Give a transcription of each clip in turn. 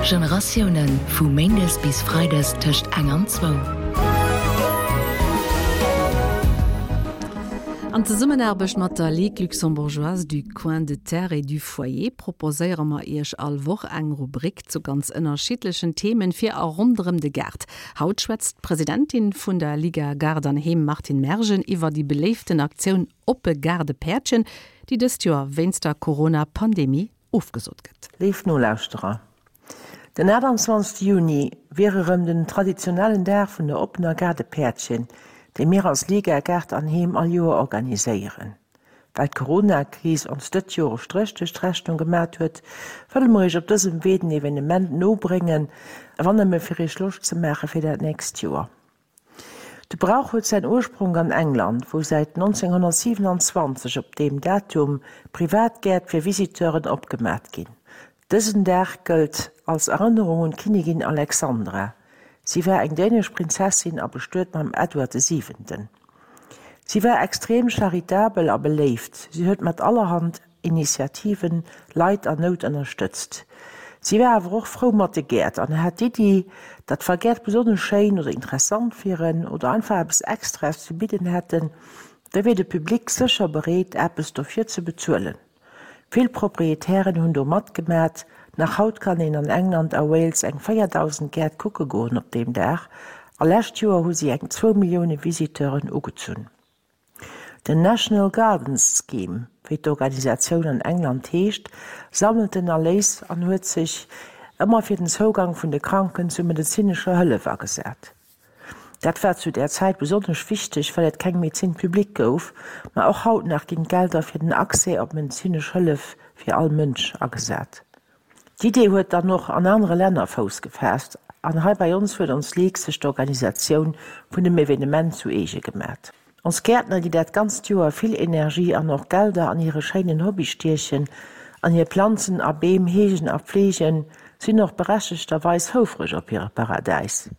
Generatiounen, vu méindes bis freides tëscht eng an zwou. An Zesummenaarbecht mat der Ligue luxembourgeoise du coin de terre et du foyer proposéiere mer Iech all Woch eng Rubrik zu ganz ënnerschiddlechen Themen fir a ronderëm de Gaart. Haut schwätzt d'Presidentin vun der Liga Gaart an Heem Martine Mergen iwwer déi beléiften Aktioun Oppe Gaardepäertchen, déi dëst Joer wéinst der Corona-Pandemie ofgesot gëtt. Léif Nolauschterer, den 28 Juni wier erëm den traditionellen Dag vun der oppener Gaardepäertchen, déi mir als Liga Gaart an Heem all Joer organiséieren. Well d'Corona-Kris ons dëtt Joer e Stréch duerch d'Rechnung gemat huet, wëlle mer iech op dësem Wee den Evenement no bréngen, wann nëmme fir iech Loscht ze maache fir dat nächst Joer. De Brauch huet säin Urspronk an England, wou säit 1927 op deem Datum privat Gäert fir Visiteuren opgemat ginn. Dësen Dag gëllt als Erënnerung un d'Kinnigin Alexandra. Si war eng dänesch Prinzessin a bestuet mam Edward de Siwenten. Si war extrem charitabel a beléift. Si huet mat allerhand Initiativen Leit an Nout ënnerstëtzt. Si war awer och frou mat de Gäert an hat d'Iddi, datt wa Gäert besonnesch schéin oder interessant wieren oder einfach eppes Extraes ze bidden hätten, da wier de Public sécher bereet eppes dofir ze bezuelen. Vill Proprietären hunn do matgemat. Nach haut kann een an England a Wales eng 4.000 Gäert kucke goen op deem Dag a lescht Joer hu si eng zwou Millioune Visiteuren ugezunn. Den National Gardens Scheme, wéi d'Organisatioun an England heescht, sammelt den Erléis an huet sech ëmmer fir den Zougang vun de Kranken zu medezinescher Hëllef agesat. Dat war zu där Zäit besonnesch wichteg, well et keng Médecine publique gouf, ma och haut nach ginn d'Gelder fir den Accès op medezinesch Hëllef fir all Mënsch agesat. D'Idee huet dann och an anere Länner Fouss gefaasst an hei bei ons huet ons Ligue sech d'Organisatioun vun dem Evenement zu eege gemat. Ons Gäertner, déi dat ganzt Joer vill Energie an och Gelder an hire schéinen Hobby stiechen an hir Planzen a Beem heegen a pfleegen, sinn och berechtegterweis houfreg op hire Paradäis.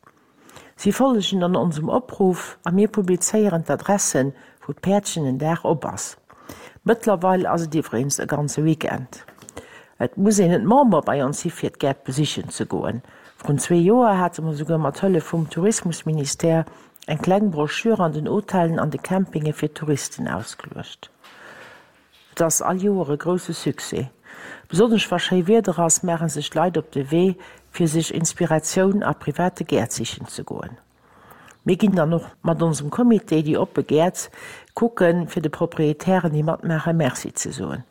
Si follegen dann onsem Opruff a mir publizéieren d'Adressen, wou d'Päerdchen den Dag op ass. Mëttlerweil ass et iwweregens e ganze Weekend. Et muss een net Member bei ons si fir d'Gäert besichen ze goen. Vrun zwee Joer hate mer souguer mat Hëllef vum Tourismusministère eng kleng Broschür an den Hotellen an de Campinge fir Touristen ausgeluecht. Et ass all Joer e grousse Succès. Besonnesch wa schéi Wieder ass, maache sech d'Leit op de Wee, fir sech Inspiratioun a private Gäert sichen ze goen. Mir ginn dann och mat onsem Comité déi oppe Gäert kucken, fir de Proprietären, déi matmaachen, Merci ze soen.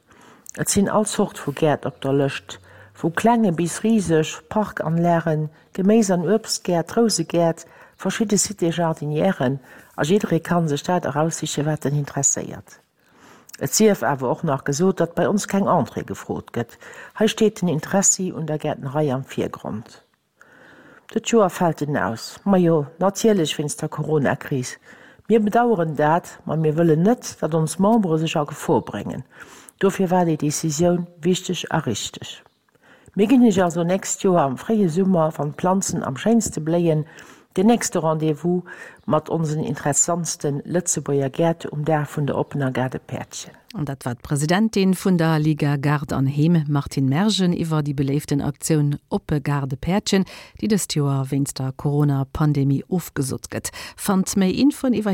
Et sinn all Zort vu Gäert op der Lëscht, vu klenge bis riseg Parkanlagen, Geméis an Uebstgäert, Rousegäert, verschidde Cité-jardinièren a jidderee kann sech dat eraussichen, wat en interesséiert. Et sief awer och nach gesot, datt bei ons keng Entrée gefrot gëtt. Hei steet den Interessi un der Gäertnerei am Virgrond. Dët Joer fält en aus, majo natierlech wéinst der Corona-Kris. Mir bedaueren dat, ma mir wëllen net, datt ons Membere sech a Gefor bréngen. Dofir war déi Decisioun wichteg a richteg. Mir ginn iech also nächst Joer am fréie Summer, wann d'Planzen am schéinste bléien, den nächste Rendez-vous mat onsen interessantste Lëtzebuerger Gäert um Dag vun der oppener Gaardepäertchen. An dat war d'Presidentin vun der Liga Gaart an Heem, Martine Mergen, iwwer déi beléiften Aktioun Oppe Gaardepäertchen, déi dëst Joer wéinst der Corona-Pandemie ofgesot gëtt. Fannt méi Infoen iwwer.